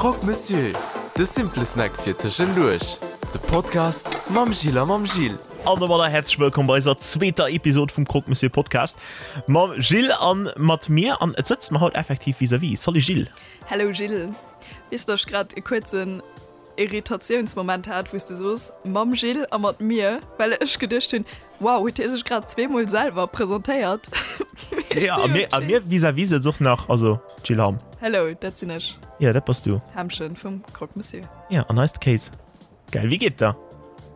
Croque Monsieur, de simple Snack fir tëschenduerch. De Podcast mam Gilles a mam Gilles. An domadder häerzlech wëllkomm bei eiser zweeter Episod vum Croque Monsieur Podcast mam Gilles an mat mir. An et sëtzt mer haut effektiv vis-à-vis. Salut Gilles. Hello Gilles. Weess de, ech grad e kuerzen Irritatiounsmoment hat, wou s de soos, mam Gilles a mat mir, well ech geduecht hunn, wow, huet hie sech grad zweemol selwer presentéiert? Jo, a mir, a mir vis-à-vis sëtzt och nach, also d'Jill Hamm. Hello, dat sinn ech. Jo, dat bass du. D'Hämmchen vum Croque Monsieur. Jo, an eist Kéis. Geil, wéi geet et der?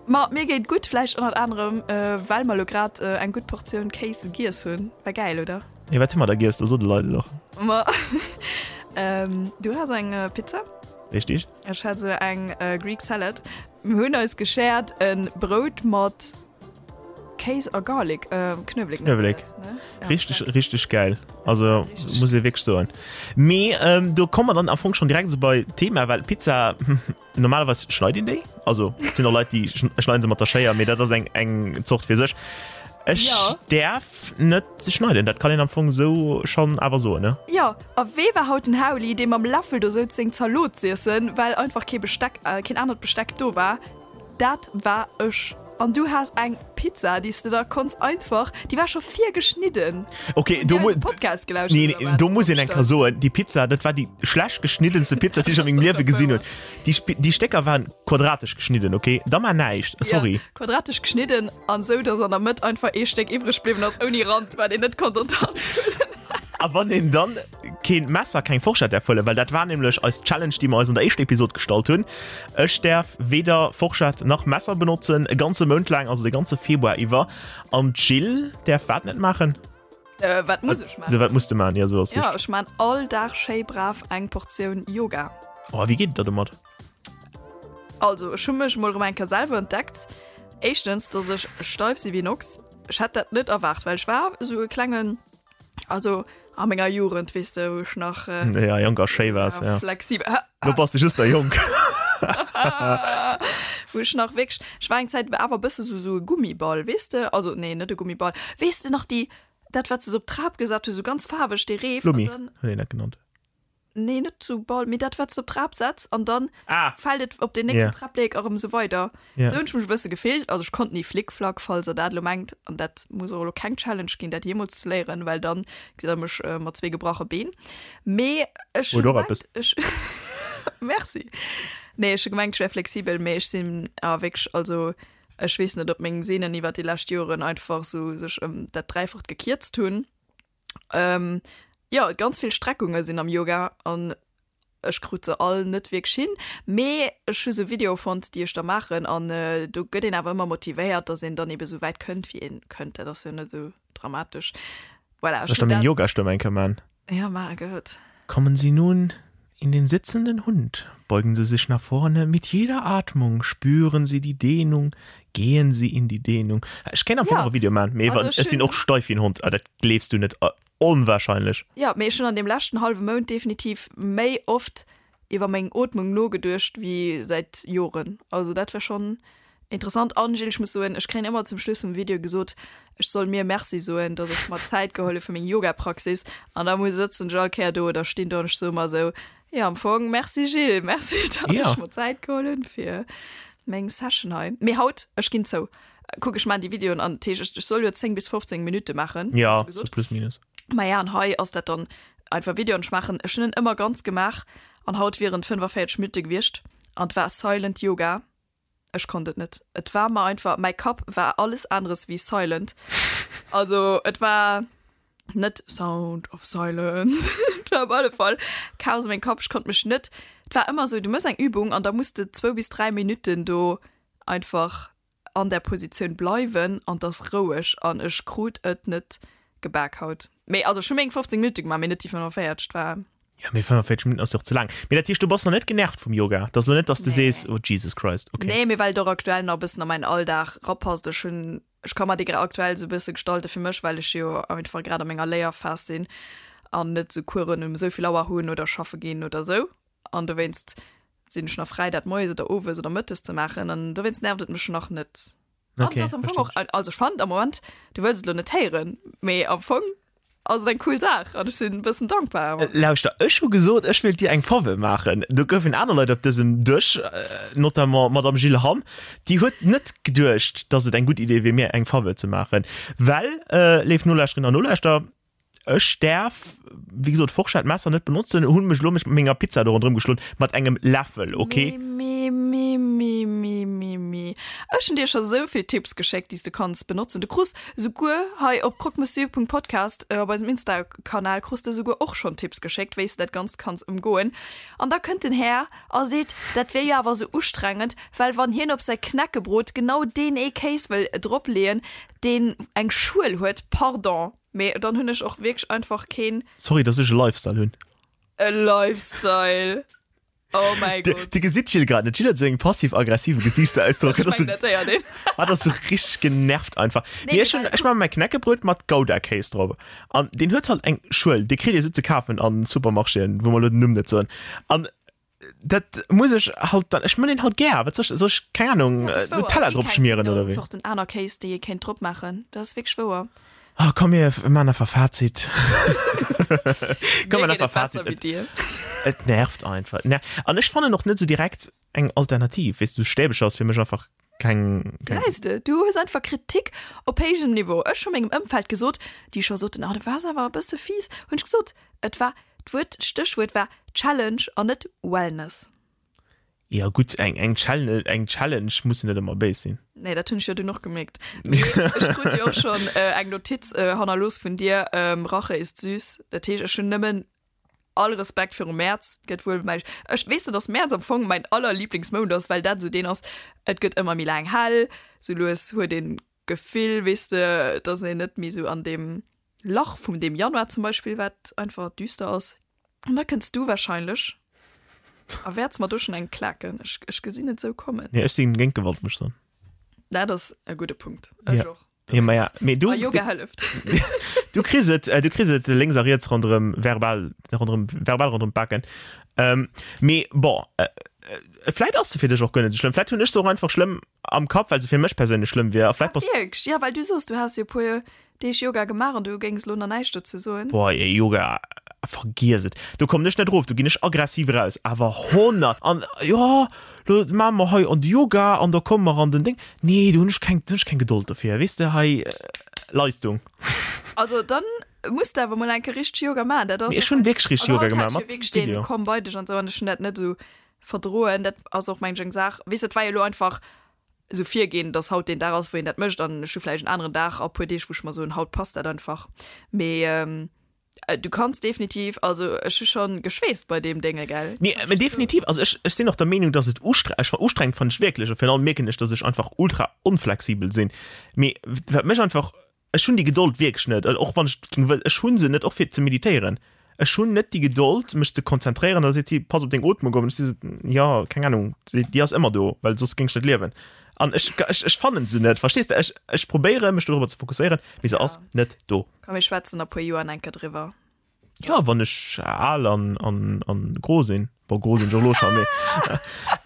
Ma mir geet gutt, vläicht ënnert anerem, well mer elo grad eng gutt Portioun Kéis giess hunn. War gäil, oder? Jo, wat hu mer da giess? Da so de Leit et och. Ma du has eng Pizza. Richtig. Ech hat sou eng Greek Salad. Mir hunn eis geshared en Brout mat Kéis a Garlic, Knuewelek. Knuewelek. Richteg, richteg gäil. Also muss ee wierklech soen. Mee do komme mer dann am Fong schonn direkt esou bei d'Thema, well Pizza, normalerweis schneit een déi. Also et sinn och Leit, déi schneiden se mat der Schéier, mee dat ass eng eng Zort fir sech. Ech däerf net schneiden, dat kann een am Fong esou schonn awer soen, ne? Jo, A wee war haut den Hauli, dee mam Läffel do souz seng Zalot z'iessen, well einfach kee Besteck, keen anert Besteck do war? Dat war ech. An du has eng Pizza, déi s de da konns einfach, déi war scho virgeschnidden. Ok, do mu, Podcast gelauschtert nee, do muss een eng Kéier soen, déi Pizza, dat war déi schlecht geschniddenste Pizza, déi ech a mengem Liewe gesinn hunn. Déi, déi Stécker waren quadratesch geschnidden, ok? Da mar näischt, sorry. Ja, quadratesch geschnidden an esou, dass an der Mëtt einfach ee Stéck iwwreg bliwwen ass, ouni Rand, wat een net konnt an d'Hand huelen. A wann een dann keen Messer, keng Forschett däerf huelen, well dat war nämlech eis Challenge, déi mer eis an der éischter Episod gestallt hunn, Ech däerf weder Forschett nach Messer benotzen, e ganze Mount laang, also de ganze Februar iwwer. An d'Jill däerf wat net maachen? Wat muss ech maachen? Wat muss de maachen? Jo, esou ass richteg. Jo, ech maan all Dag schéi brav eng Portioun Yoga. Oh, a wéi geet et der domat? Also, ech hu mech emol erëm eng Kéier selwer entdeckt. Éischtens, dass ech steif si wéi en Ochs. Ech hätt dat net erwaart, well ech war esou e klengen. Also a menger Jugend, weess de, wou ech nach äh, ja, jonk a schéi waars, ja. flexibel. Lo bass de just nach jonk. Wou ech nach wierklech, ech war eng Zäit awer e bësse sou sou e Gummiball, weess de? Also nee, net e Gummiball. Weess de nach déi, dat wat se sou op d'Trap gesat hu, sou ganz faarweg, dee Reef? Flummi huet een dat genannt. Nee, net sou Ball, mee dat wat s de op d'Trap setz an dann ah. fält et op den nächsten yeah. Trapléck erëm sou weider. Yeah. Sou hunn ech mech e bësse gefillt. Also ech konnt ni Flickflack, falls der dat elo mengt. An dat muss och elo keng Challenge ginn, dat jeemools ze léieren, well dann gesitt der mech äh, mat zwee gebrache Been. Mee ech hunn gemengt, ech Merci. Nee, ech hu gemengt, ech wär flexibel, mee ech sinn awer wierklech, also ech weess net, ob meng Sehnen iwwer déi lescht Joren einfach sou sech ëm dat Dräifacht gekierzt hunn. Ähm, jo, ganz vill Streckunge sinn am Yoga an ech krut se all net wierklech hin. Mee ech hu sou Videoe fonnt, déi ech da maachen an do gëtt een awer ëmmer motivéiert, dass een dann ebe sou wäit kënnt, wéi een kënnt. Dat ass jo net sou dramatesch. Voilà, ech Soll ech da meng Yoga-Stëmm eng Kéier man? Ja, maach gutt. Kommen Sie nun in den sitzenden Hund, beugen Sie sich nach vorne, mit jeder Atmung spüren Sie die Dehnung, gehen Sie in die Dehnung. Ech kéint am Fong och e Video man, mee ech sinn och steif wéi en Hond, dat gleefs du net, onwahrscheinlech. Jo, mee ech hunn an deem leschten hallwe Mount definitiv méi oft iwwer meng Ootmung nogeduecht wéi säit Joren. Also dat war schonn interessant. An Gilles, ech muss soen, ech kréien ëmmer zum Schluss vum Video gesot, ech soll mir Merci soen, dass ech mer Zäit geholl hu fir meng Yoga-Praxis. An da muss sëtzen ech all Kéier do oder stinn do an ech soe mer esou, jo am Fong Merci Gilles, Merci, dass ech mer Zäit geholl hunn fir meng Session hei. Mee haut, ech ginn zou, kuck ech maan déi Videoen an dat heescht, ech soll jo 10 bis 15 Minutte maachen, has du gesot. Jo, plus minus. Maja, an hei ass dat dann einfach Video an ech maachen, ech hunn en ëmmer ganz gemaach an haut wieren et 45 Minutte gewiescht an et war Silent Yoga. Ech konnt et net. Et war mer einfach, mäi Kapp war alles aneres wéi silent. Also et war net Sound of Silence, et war op alle Fall Chaos a mengem Kapp, ech konnt mech net, et war ëmmer esou, du méchs eng Übung an da muss de zwou bis 3 Minutten do einfach an där Positioun bleiwen an 't ass roueg an ech krut et net gebak haut. Mee also ech hu meng 15 Minutte gemaach, mee net déi 45, 't war. Jo, mee 45 Minutten ass jo och ze laang. Mee dat heescht, du bass nach net genervt vum Yoga? 't ass elo net, dass de sees, oh Jesus Christ, okay. Nee, mee well et och aktuell nach e bëssen a mäin Alldag rapasst. Ech hunn, ech ka mer dee aktuell sou e bësse gestalte fir mech, well ech jo einfach grad a menger Léierphas sinn an net sou Coursen um esou vill Auer hunn oder schaffe ginn oder sou. An dowéinst sinn ech nach fräi, dat moies oder owes oder mëttes ze maachen. An dowéinst nervt et mech nach net. An Okay, et ass am Fong verstinn och, also ech fannen am Moment, du wëlls et elo net héieren, mee am Fong. Ass et eng cool Saach an ech sinn e bëssen dankbar awer. Lauschter, ech hu gesot, ech wéilt dir eng Faveur maachen. Do goufen aner Leit op dësem Dësch, notamment d'Madame Jill Hamm, déi huet net geduecht, dass et eng gutt Idee wier, mir eng Faveur ze maachen. Well, léif Nolauschterinnen an Nolauschterer, ech däerf, wéi gesot, Forschett, Messer net benotzen, hunn mech elo mech mat menger Pizza do ronderëm geschloen, mat engem Läffel, ok? Mi, mi, mi, mi, mi, mi. Ech hunn dir scho sou vill Tipps geschéckt, déi s de kanns benotzen. Du krus Souguer hei op croquemosieur.podcast op eisem Insta-Kanal krus de souguer och schonn Tipps geschéckt, wéi s de dat Ganzt kanns ëmgoen. An da kënnt den Här a seet, dat wier jo awer sou ustrengend, well wann hien op säi Knäckebrot genau deen ee Kéis wëll drop leeën, deen eng Schuel huet, pardon, mee dann hunn ech och wierklech einfach keen. Sorry, dass ech e Lifestyle hunn. E Lifestyle! Oh mäi Gott. Dir gesitt d'Jill grad net. D'Jill huet esou eng passiv-aggressive Gesiichtsausdrock. Ech mengen, dat héiert een. Hatt ass sou richteg genervt einfach. Nee, mee ech hunn, ech maache mäi Knäckebrot mat Gouda-Kéis drop. An deen huet halt eng Schuel. Dee kritt ee sou ze kafen an Supermarchéen, wou mer elo den Numm net soen. An dat muss ech halt dann, ech mën deen halt gär. Wat soll ech, soll ech, keng Ahnung, Nutella drop schmieren oder wéi? Zorten aner Kéis, déi ee kéint drop maachen. Dat ass wierklech wouer. Oh, komm mir man einfach Fazit. Komm mir einfach Fazit. Et, et nervt einfach. Ner An ech fannen och net so direkt eng Alternativ. Weess du, Stäbecher ass fir mech einfach keng. keng Gesäis de, du hues einfach Kritik op héijem Niveau. Ech hu mengem Ëmfeld gesot, déi scho soten, ah, du waars awer e bësse fies, hunn ech gesot, et war, d'Wuert, d'Stéchwuert war Challenge an net Wellness. Jo gutt, eng eng Challenge, eng Challenge muss jo net ëmmer béis sinn. Nee, dat hunn ech jo dunn och gemierkt. Mee ech krut jo och schonn eng Notiz hannerlooss vun dir, Rache ist süß. Dat heescht, ech hunn nëmmen all Respekt virum Mäerz. Gëtt wuel mäi, ech, weess de, dass Mäerz am Fong mäin allerliblingsmount ass, well dat esou deen ass, et gëtt ëmmer méi laang hell, sou lues huet een d'Gefill, weess de, dass een net méi esou an deem Lach vum deem Januar zum Beispill, wat einfach düster ass. An da kënns du wahrscheinlech a wäerts mer do schonn eng klaken. Ech, ech gesinn et sou kommen. Nee, ech sinn géint Gewalt, muss ech soen. Dat ass e gudde Punkt. Ech Ja. och. Ja, ma ja, mee du, A Yoga hëlleft. du kriss et, äh, du kriss et lénks a riets ronderëm verbal, ronderëm, verbal ronderëm d'Baken. Ähm, mee bon, äh, äh, vläit ass se fir dech och guer net esou schlëmm. Vläit hunn ech se och einfach schlëmm am Kapp, well se fir mech perséinlech schlëmm wier. A vläit bass. Wierklech? Ja, well du soos, du häss jo e puer Deeg Yoga gemaach an du géings elo nach näischt dozou soen? Boah, ey, Yoga, vergiess et. Do kommen ech net erof, do ginn ech aggressiv eraus. Awer 100! An jo, lo maache mer hei an de Yoga an da komme mer an den Ding. Nee, do hunn ech keng, do hunn ech keng Gedold dofir. Weess de, hei Leistung. Also dann muss de awer mol eng Kéier richteg Yoga maachen. Dat ass Mee ech hunn wierklech richteg Yoga gemaach mat wierklech deen Video. Komm bei dech an esou an ech hunn dat net esou verdroen. Dat ass och meng ech eng Saach, weess de, et war jo elo einfach esou virginn, dass haut deen Dag ass, wou een dat mécht an ech hu vläicht en aneren Dag a puer Deeg, wou ech mer soen, haut passt dat einfach. Mee du kanns definitiv, also ech hu schonn geschweesst bei deem Dénge, gell? Nee, mä definitiv, also ech, ech sinn och der Meenung, dass et ustre, ech, ustrengend fannen ech wierklech a virun allem mierken ech, dass ech einfach ultra onflexibel sinn. Mee wat mech einfach Ech hunn déi Gedold wierklech net, och wann ech ging wëll, ech hu se net, och fir ze meditéieren. Ech hunn net déi Gedold, mech ze konzentréieren. Da seet si, pass op deng Ootmung op. An ech si sou, jo, keng Ahnung, déi, déi ass ëmmer do, well soss géing ech net liewen. An ech, ech, ech fannen se net, verstees de? Ech, ech probéieren, mech dorobber ze fokusséieren, mee se ass net do. Komm, mir schwätzen a puer Joer enker driwwer. Ja, wann ech al an, an, an gro sinn. Bon, gro sinn ech och elo scho, mee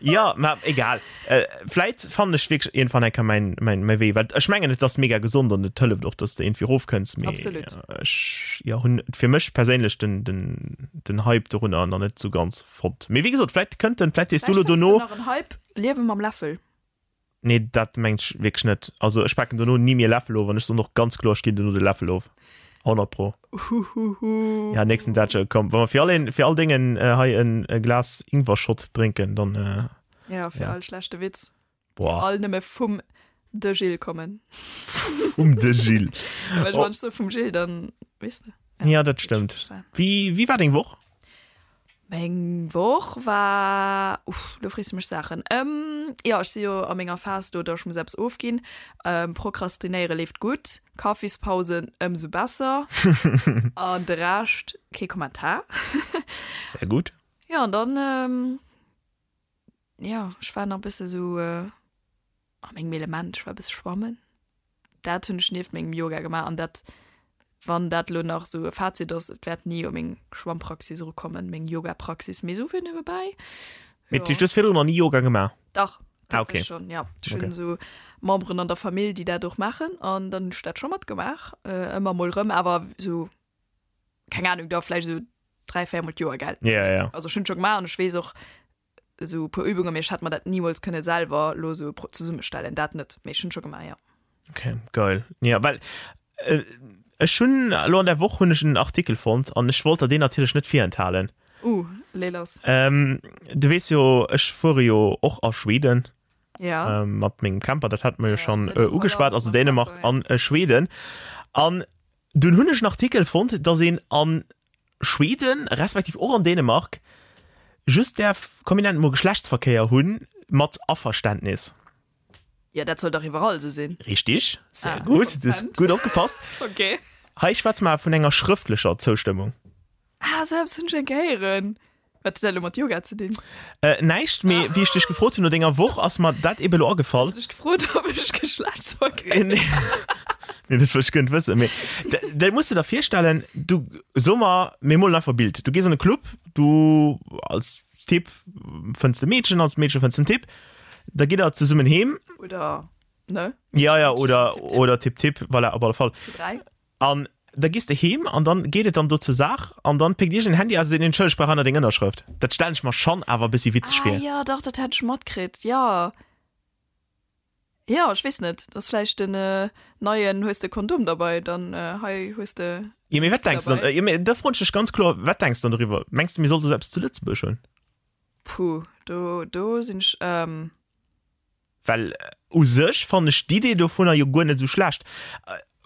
ja, ma egal. Äh, vläit fannen ech wierklech iergendwann eng Kéier mäin, mäin, mäi Wee, well ech mengen, et ass mega gesond an et hëlleft och, dass de iergendwéi erofkënns, mee Absolut. ech, ja, hunn fir mech perséinlech den, den, den Hype dorunner nach net sou ganz fonnt. Mee wéi gesot, vläit kënnt en, vläit sees du Vläicht elo fënns du dono. nach en Hype, Liewe mam Läffel. Nee, dat mengt ech wierklech net. Also ech paken dono ni méi e Läffel of an ech soen och ganz kloer, ech ginn dono de Läffel of. 100 pro. Huhuhu. Ja, nächsten Datsche, komm, wa mer fir all een, fir all Déngen äh, hei en e Glas Ingwer-Shot drénken, dann äh, Ja, fir Ja. all schlechte Witz. boah, All nëmme vum de Gilles kommen. vum de Gilles. Well Oh. wann ech so vum Gilles, dann weess de. Ja, dat stëmmt. Wéi, wéi war deng Woch? Meng Woch war, uff, lo frees de mech Saachen. Ähm, jo, ech si jo a menger Phas do, datt ech muss eppes ofginn. Ähm, Prokrastinéiere leeft gutt, Kaffispausen ëmsou besser an de Rescht kee Kommentar. Sehr gut. Jo, an dann, ähm, jo, ech war nach e bësse sou a mengem Element, ech war e bësse schwammen. Dat hunn ech nieft mengem Yoga gemaach an dat, wann dat elo nach esou e Fazit ass, et wäert ni u meng Schwammpraxis erukommen, meng Yogapraxis, mee esou fir niewebäi, Mee du hues virdrun nach ni Yoga gemaach? Dach, Ah, okay. tatsächlech schonn, ja. Ech hunn Okay. esou Memberen an der Famill, déi dat och maachen an dann hunn ech dat scho matgemaach, ëmmer mol erëm, awer esou. Keng Ahnung, da vläicht esou 3, 4 mol d'Joer, gell? Ja, ja. Also ech hunn et scho gemaach an ech weess och esou e puer Übungen, mee ech hätt mer dat nimools kënne selwer elo esou zesummestellen, dat net, mee ech hunn et scho gemaach, jo. Okay, geil. Ja, well äh, ech hunn elo an der Woch hunn ech en Artikel fonnt an ech wollt der deen natierlech net virenthalen. Uh, lee lass. Ähm, du weess jo, ech fuere jo och a Schweden. Ja. Ähm, mat mengem Camper, dat hat mer jo schon äh, ugeschwat, also Dänemark an äh, Schweden. An dunn hunn ech en Artikel fonnt, dass een an Schweden, respektiv och an Dänemark, just däerf, komm mir nennen et mol Geschlechtsverkéier hunn, mat Averständnis. Ja, dat soll dach iwwerall esou sinn. Richtig, sehr ah, gut, du hast gut opgepasst. Okay. Hei schwätze mer vun enger schrëftlecher Zoustëmmung. Ah, sou eppes hunn ech eng Kéier héieren. Wat huet dat elo mat Yoga ze dinn? Äh, näischt, mee wéi ech dech gefrot hunn no denger Woch, ass mer dat ebe lo agefall. Hues du dech gefrot, ob ech Geschlechtsverkéier Nee, nee, dat wollt ech guer net wëssen. Mee dat muss de der virstellen, du, so mer, mir molen einfach e Bild. Du gees an e Club, du als Typ fënns de Meedchen, als Meedche fënns den Typ, da gitt der zesummen heem. Oder, ne? Ja, ja, oder, Tipp, tipp. oder Tipp, Tipp, voilà, op alle Fall. Zu 3. An da gees de heem an dann geet et dann do zur Saach an dann péckt iergend en Handy aus a seet, Entschëlleg, ech brauch aner deng Ënnerschrëft. Dat stellen ech mer schonn awer e bëssi witzeg Ah vir. jo, dach, dat hat ech matkritt, jo. Jo, ech weess net, dat ass vläicht den neien, hues de Kondom derbei, dann hei hues de. Jo, mee wat denks de dann? Jo, mee da froen ech dech ganz kloer, wat denks de dann doriwwer? Mengs de, mir sollte sou eppes zu Lëtzebuerg hunn? Puh, do, do sinn ech. Well u sech fannen ech d'Idee dovunner jo guer net esou schlecht.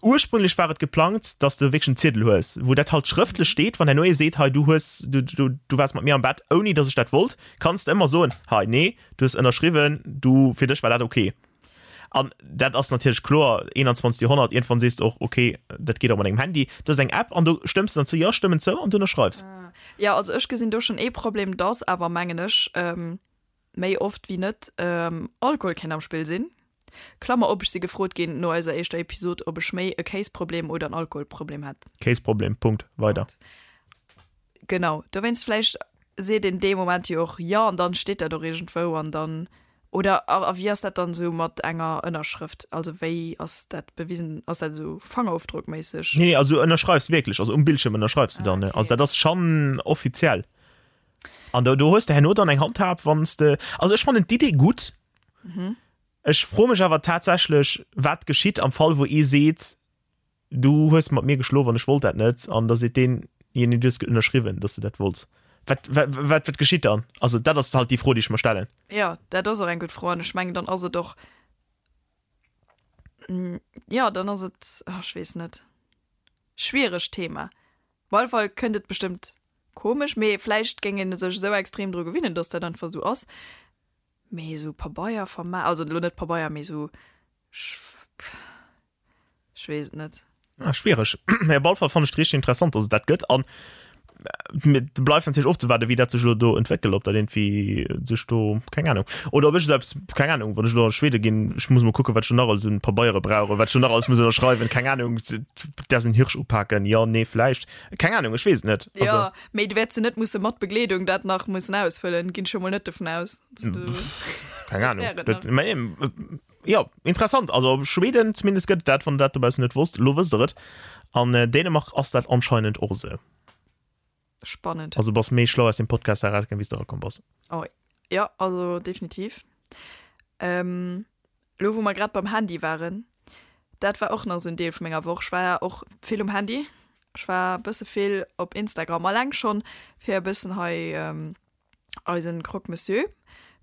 Ursprünglech war et geplangt, dass de wierklech en Ziedel hues, wou dat halt schrëftlech steet, wann herno ee seet, hei du hues, du, du, du waars mat mir am Bett, ouni dass ech dat wollt, kanns de ëmmer soen, hei nee, du hues ënnerschriwwen, du, fir dech war dat ok. An dat ass natierlech kloer, 21. Joerhonnert, iergendwann sees de och, ok, dat geet och mat engem Handy, du hues eng App an do stëmms de dann zou, jo, ech stëmmen zou an du ënnerschreifs. Jo, also ech gesinn do schonn ee Problem, dass awer, mengen ech, méi oft wéi net Alkohol kéint am Spill sinn. Klammer op, ech si gefrot ginn no eiser éischter Episod, ob ech méi e Kéisproblem oder en Alkoholproblem hätt. Kéisproblem, Punkt, weider. Genau, dowéinst vläicht seet een dee Moment jo och jo an dann steet dat och iergendwou an dann, oder a wéi ass dat dann esou mat enger Ënnerschrëft, also wéi ass dat bewisen, ass dat esou Fangerofdrockméisseg? Nee, nee, also du ënnerschreifs wierklech, also um Bildschierm ënnerschreifs du dann, ne? Also dat ass schonn offiziell. An do, do hues de herno dann eng Handhab, wann s de. Also ech fannen d'Idee gutt. Mhm. Ech froe mech awer tatsächlech, wat geschitt am Fall, wou ee seet, du hues mat mir geschlof an ech wollt dat net, an da seet deen, jo nee, du hues ënnerschriwwen, dass du dat wollts. Wat, wat, wat, wat geschitt dann? Also dat ass halt déi Fro, déi ech mer stellen. Jo, dat ass och eng gutt Fro an ech mengen, dann ass et och, jo, dann ass et, ach, ech weess net, schwieregt Thema. Op alle Fall kënnt et bestëmmt komesch, mee vläicht géing een sech esou extrem dru gewinnen, dass dat einfach esou ass. Mee esou Pabeier verma, also elo net Pabeier, mee esou, ech weess et net. Ah, schwiereg. Mee op alle Fall fannen ech et richteg interessant, dass et dat gëtt an et bleift natierlech ofzewaarden, wéi dat sech elo do entwéckelt, ob dat iergendwéi sech do, keng Ahnung, oder ob ech esou eppes, keng Ahnung, wann ech elo a Schwede ginn, ech muss mol kucken, wat ech do nach alles un Pabeiere brauch oder wat ech do nach alles muss ënnerschreiwen, keng Ahnung, däerfs en Hirsch upaken, jo, nee, vläicht, keng Ahnung, ech weess et net. Also. Jo, mee du wäerts jo net musse mat Begleedung dat nach mussen ausfëllen, ginn ech jo mol net dovun aus. Keng Ahnung, dat, mä jo, interessant, also Schweden zumindest gëtt et dat, wann der dat dobaussen net wosst, elo wësst der et. An Dänemark ass dat anscheinend och esou. Spannend. Also bass méi schlau aus dem Podcast erausgaang, wéi s de erakomm bass. Oh jo, also definitiv. Ähm, lo wou mer grad beim Handy waren, dat war och nach esou en Deel vu menger Woch. Ech war och vill um Handy. Ech war e bësse vill op Instagram, alleng schonn fir e bëssen hei eisen Croque Monsieur.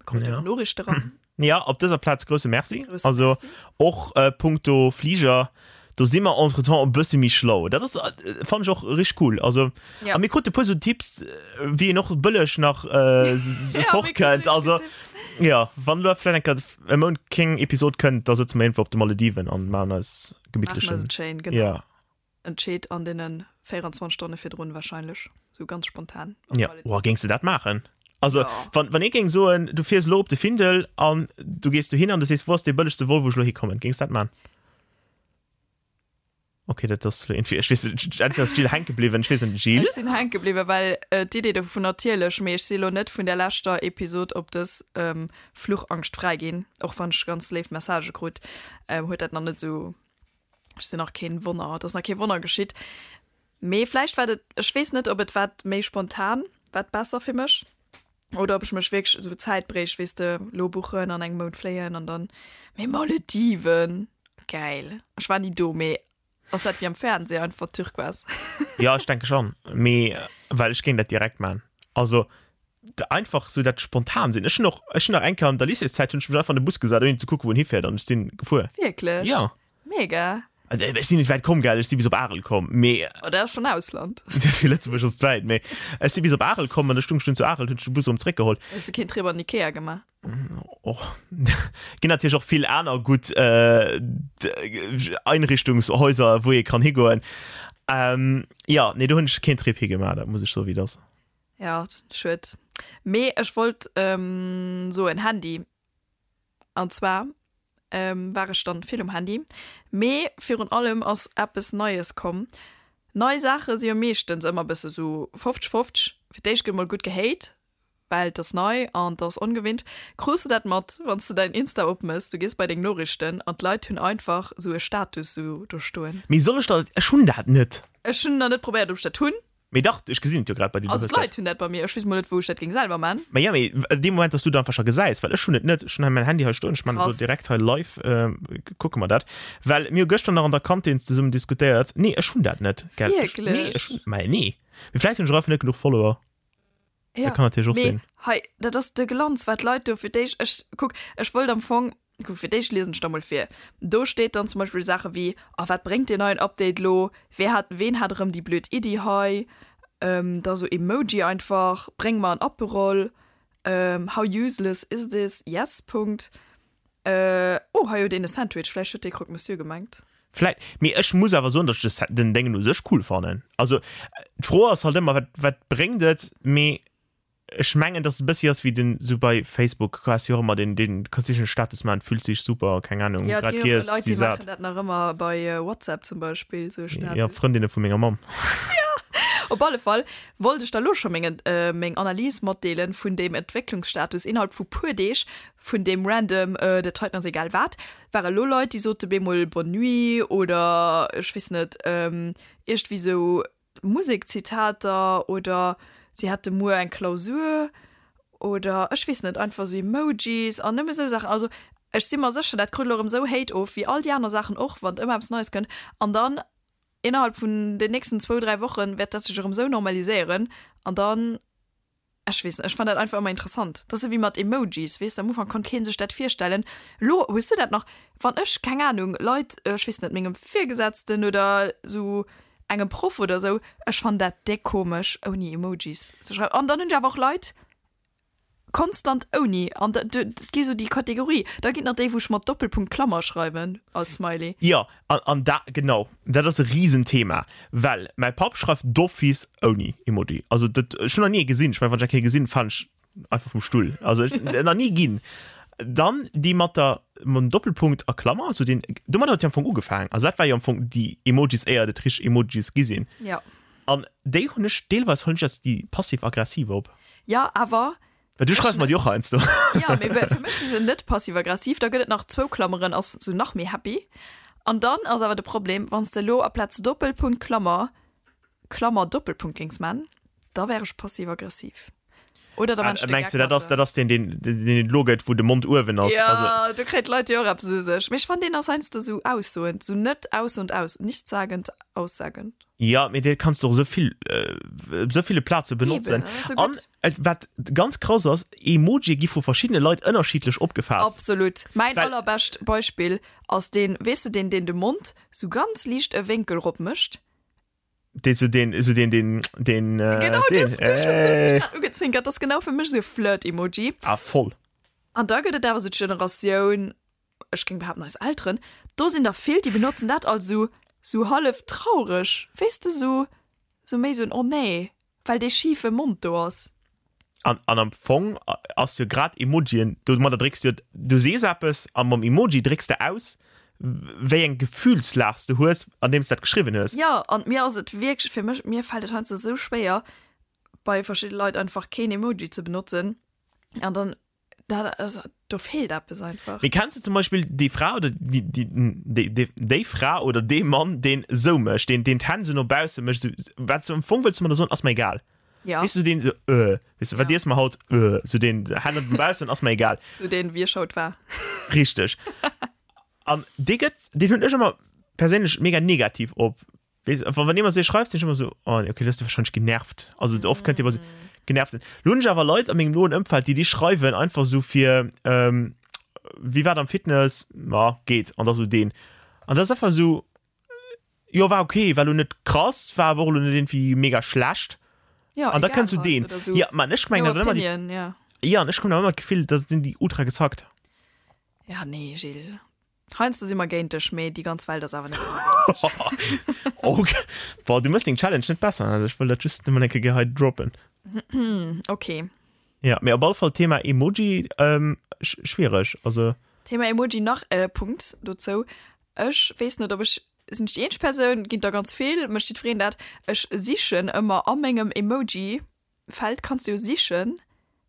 Mir kruten Ja. och Noriichte ran. Ja, op dëser Plaz grousse Merci. Grousse Also Merci. och äh, punkto Fliger, do si mer entretemps e bësse méi schlau. Dat ass, äh, fand ech och richteg cool. Also, Ja. a mir krute puer sou Tipps, äh, wéi een och bëlleg nach äh, s- Ja, mir fort krute kënnt. richtig Also, gutt Tipps. ja, wann lo vläicht eng Kéier e Mount keng Episod kënnt, da sëtze mer iergendwou op de Malediven an maachen eis Maachen eis gemittlechen. et schéin, genau. Ja. Entscheet an deene 24 Stonne virdrun wahrscheinlech, sou ganz spontan. Op Ja, Malediven. oh, géings de dat maachen? Also, Ja. wann, wann ee géing soen, du fiers elo op de Findel an du gees dohin an du sees, wou ass dee bëllegste Vol, wou ech elo hikommen, géings de dat maachen? Okay, dat ass elo irgendwie, ech weess net, entweder ass d'Jill hänke bliwwen, ech weess net, Jill? Ech sinn hänke bliwwen, well äh, d'Idee dovun natierlech, mee ech si lo net vun der leschter Episod op dës ähm, Fluchangscht fräi ginn, och wann ech ganz léif Messagë krut, ähm, huet dat nach net sou Ech sinn nach keen Wonner, et ass nach kee Wonner geschitt. Mee vläicht war et, ech weess net, ob et wat méi spontan wat besser fir mech oder ob ech mech wierklech esou Zäit bréicht, weess de, lo buchen an engem Mount fléien an dann, mee Malediven, gäil. Ech war ni do, mee ass dat wéi am Fernseh, einfach Turquoise? Jo, ech denke schon, mee well ech géing dat direkt man. Also einfach sou dat spontan sinn. Ech hunn och, ech hunn nach eng Kéier an der Lycéeszäit hunn ech mech einfach an de Bus gesat ouni ze kucken wou en hifäert an ech sinn gefuer. Wierklech? Jo. Mega. Also ech sinn net wäit komm, gell, ech si bis op Arel komm, mee. Oh, dat ass schonn Ausland. Fir Lëtzebuerg ass et wäit, mee ech si bis op Arel komm an da stung ech dunn zu Arel, hunn ech de Bus erëm zréckgeholl. Hues de keen Trip an Ikea gemaach? Och ginn natierlech och vill aner gutt Einrichtungshäuser, wou ee kann higoen. Jo, nee, do hunn ech keen Trip higemaach, dat muss ech soen, wéi et ass. Ja, schued. Mee ech wollt soen, Handy. An zwar war ech dann vill um Handy. Mee virun allem ass eppes Neies komm. Nei Saache si jo meeschtens ëmmer bësse sou 50, 50. Fir d'éischt gëtt mol gutt gehate, well et ass nei an et ass ongewinnt. Krus de dat mat, wann s de däin Insta opmëss, du gees bei deng Noriichten an d'Leit hunn einfach sou e Status sou do stoen. Mee soll ech dat, ech hunn dat net. Ech hunn nach net probéiert, ob ech dat hunn. Mee dach, ech gesinn et jo grad bei dir. Also d'Leit hunn dat bei mir, ech weess mol net wou ech dat géing selwer man. Mä jo, mee dee Moment, dass du et einfach scho gesäis, well ech hunn et net, ech hunn hei mäin Handy hei stoen, ech man et elo direkt hei live, kucke mer dat, well mir hu gëschter nach an der Kantin zesummen diskutéiert. Nee, ech hunn dat net, gell. Wierklech? Nee, ech hunn, mä nee. Mee vläicht hunn ech och einfach net genuch Follower. Ja, dat kann natierlech och mee sinn. Hei, dat ass de Glanz, wat d'Leit do fir d'éischt, ech, kuck, ech wollt am Fong, kuck, fir d'éischt liesen ech da mol vir. Do steet dann zum Beispill Saache wéi, A wat bréngt deen neien Update lo? Wee hat, ween hat erëm déi blöd Iddi hei? Da sou Emoji einfach, Bréng mer en Aperol, How useless is this? Yes, Punkt. Oh, hei huet een e Sandwich, vläicht huet dee Croque Monsieur gemengt. Vläit, mee ech muss awer soen, datt ech den Déngen u sech cool fannen. Also d'Fro ass halt ëmmer, wat, wat bréngt et? Mee ech mengen, datt et e bëssi ass wéi den, sou bei Facebook has jo och ëmmer den, den kanns de en Status maachen, fühlt sich super, keng Ahnung, Ja, et grad ginn och giess, Leit, si déi sat. maachen dat nach ëmmer bei WhatsApp zum Beispill, sou e Status. Ja, Frëndinne vu menger Mamm. Op alle Fall wollt ech der lo scho meng, meng Analys matdeelen vun deem Entwécklungsstatus innerhalb vu puer Deeg vun deem random, dat heiten ass egal wat, ware lo Leit, déi sote bemol Bonne nuit oder ech weess net, iergdwéi sou Musekzitater oder si hätte muer eng Klausur oder ech weess net, einfach sou Emojis an nëmme sou Saachen. Also ech si mer sécher, dat krut elo erëm sou Hate of, wéi all déi aner Saachen och, wann ëmmer eppes Neies kënnt. An dann innerhalb vun den nächsten zwou, dräi Woche wäert dat sech erëm sou normaliséieren an dann Ech weess net, ech fann dat einfach ëmmer interessant. Dat ass ewéi mat Emojis, weess de, am Ufank konnt kee sech dat virstellen. Elo hues du dat nach, wann ech, keng Anung, Leit, ech weess net, mengem Virgesetzten oder sou engem Proff oder sou, ech fann dat déck komesch ouni Emojis ze schreiwen. An dann hunn ech awer och Leit konstant ouni, an dat gi sou déi Kategorie. Da ginn et nach déi, wou ech mat Doppelpunkt Klammer schreiwen als Smiley. Jo, an, an da, genau, dat ass e Risenthema, well mäi Papp schreift d'office ouni Emoji. Also dat, ech hunn nach ni ee gesinn. Ech mengen, wann ech eng Kéier gesinn, falen ech einfach vum Stull. Also ech, nach ni ginn. Dann déi mat der, mam Doppelpunkt a Klammer, also deen, domat huet jo am Fong ugefaangen. Also dat war jo am Fong déi Emojis, éier et richteg Emojis gi sinn. Jo. An déi hunn ech, deelweis hunn ech als déi passiv-aggressiv op. Jo, awer Well du schreifs mer déi och heiansdo. Ja, mee fir mech si se net passiv-aggressiv. Da gëtt et nach zwou Klammeren, ass sou nach méi happy. An dann ass awer de Problem, wann s de elo aplaz Doppelpunkt Klammer, Klammer Doppelpunkt géings man, da wär ech passiv-aggressiv. Oder da man ech de Mengs Geck du, dat mat ass, der. dat ass deen, deen, deen et elo gëtt, wou de Mond uewen ass? Ja, Also. do kréien d'Leit jo och eppes u sech. Mee ech fannen, deen ass heiansdo sou aussoend, sou net aussoend aus, nichtssagend aussagend. Ja, mee dee kanns du och esou vill, op esou ville Plaze benotzen. Eben, dat ass sou An gutt. et, wat ganz krass ass, Emojie gi vu verschiddene Leit ënnerschiddlech opgefaasst. Absolut. Mäin Well. allerbescht Beispill ass deen, weess de deen, deen de Mond sou ganz liicht e Wénkel rop mécht? Deen sou deen, sou deen, deen, deen, Genau, deen, du hues, du hues mech äh. grad ugezwinkert. Dat ass genau fir mech sou e Flirt-Emoji. Ah, voll. An da gëtt et awer sou d'Generatioun, ech géing behaapten eis Elteren, do sinn der vill, déi benotzen dat als sou, sou hallef traureg, weess de, sou, sou méi sou en Oh nee, well dee schife Mond do ass. An, an am Fong ass jo grad Emojien, domadder drécks du jo, du sees eppes a mam Emoji drécks de aus, wéi eng Gefühlslag s de hues, andeems de dat geschriwwen hues. Jo, an mir ass et wierklech, fir mech, mir fält et heiansdo sou schwéier, bei verschidde Leit einfach keen Emoji ze benotzen an dann. Dat ass, do feelt eppes einfach. Mee kenns de zum Beispill déi Fra oder déi, déi, déi, déi, déi Fra oder dee Mann, deen esou mécht, deen, deen d'Hänn esou no bausse mécht, esou, wat s du am Fong wëlls du mer do soen, ass mer egal. Ja. Weess du, deen esou, äh, weess du, wat Ja. iesse mer haut, äh, esou deen Hänn no baussen, ass mer egal. Sou deen, wie schaut war. Richteg. An dee gëtt, deen hunn ech ëmmer perséinlech mega negativ op Weess, wann wann jemand esou schreift, sinn ech ëmmer esou, oh nee, okay, du hues de wahrscheinlech genervt. Also oft kënnt dir ëmmer esou genervt sinn. Lo hunn ech awer Leit a mengem noen Ëmfeld, déi déi schreiwen einfach esou fir, ähm, wéi war et am Fitness? Ma geet. An da sou deen. An dat ass einfach esou, jo war okay, war lo net krass, war awer och lo net iergendwéi mega schlecht. Ja, An da egal kënnt sou halt, deen. oder sou Ja, man ech mengen no dat ëmmer déi, opinion, ja. ja, an ech hunn awer ëmmer d'Gefill, da sinn déi ultra gesackt. Ja, nee, Gilles. Heiansdo si mer géint dech, mee déi ganz Welt ass awer net ëmmer géint dech. Ok. Boah, du mëss deng Challenge net besser, also ech wëll dat just nëmmen eng Kéier hei droppen. Ok. Ja, mee op alle Fall Thema Emoji, ähm, schwiereg, also. Thema Emoji, nach e Punkt dozou, Ech weess net, ob ech, sinn ech déi eenzeg Persoun, ginn der ganz vill, mécht jiddwereen dat, ech sichen ëmmer a mengem Emoji Feld kanns du jo sichen,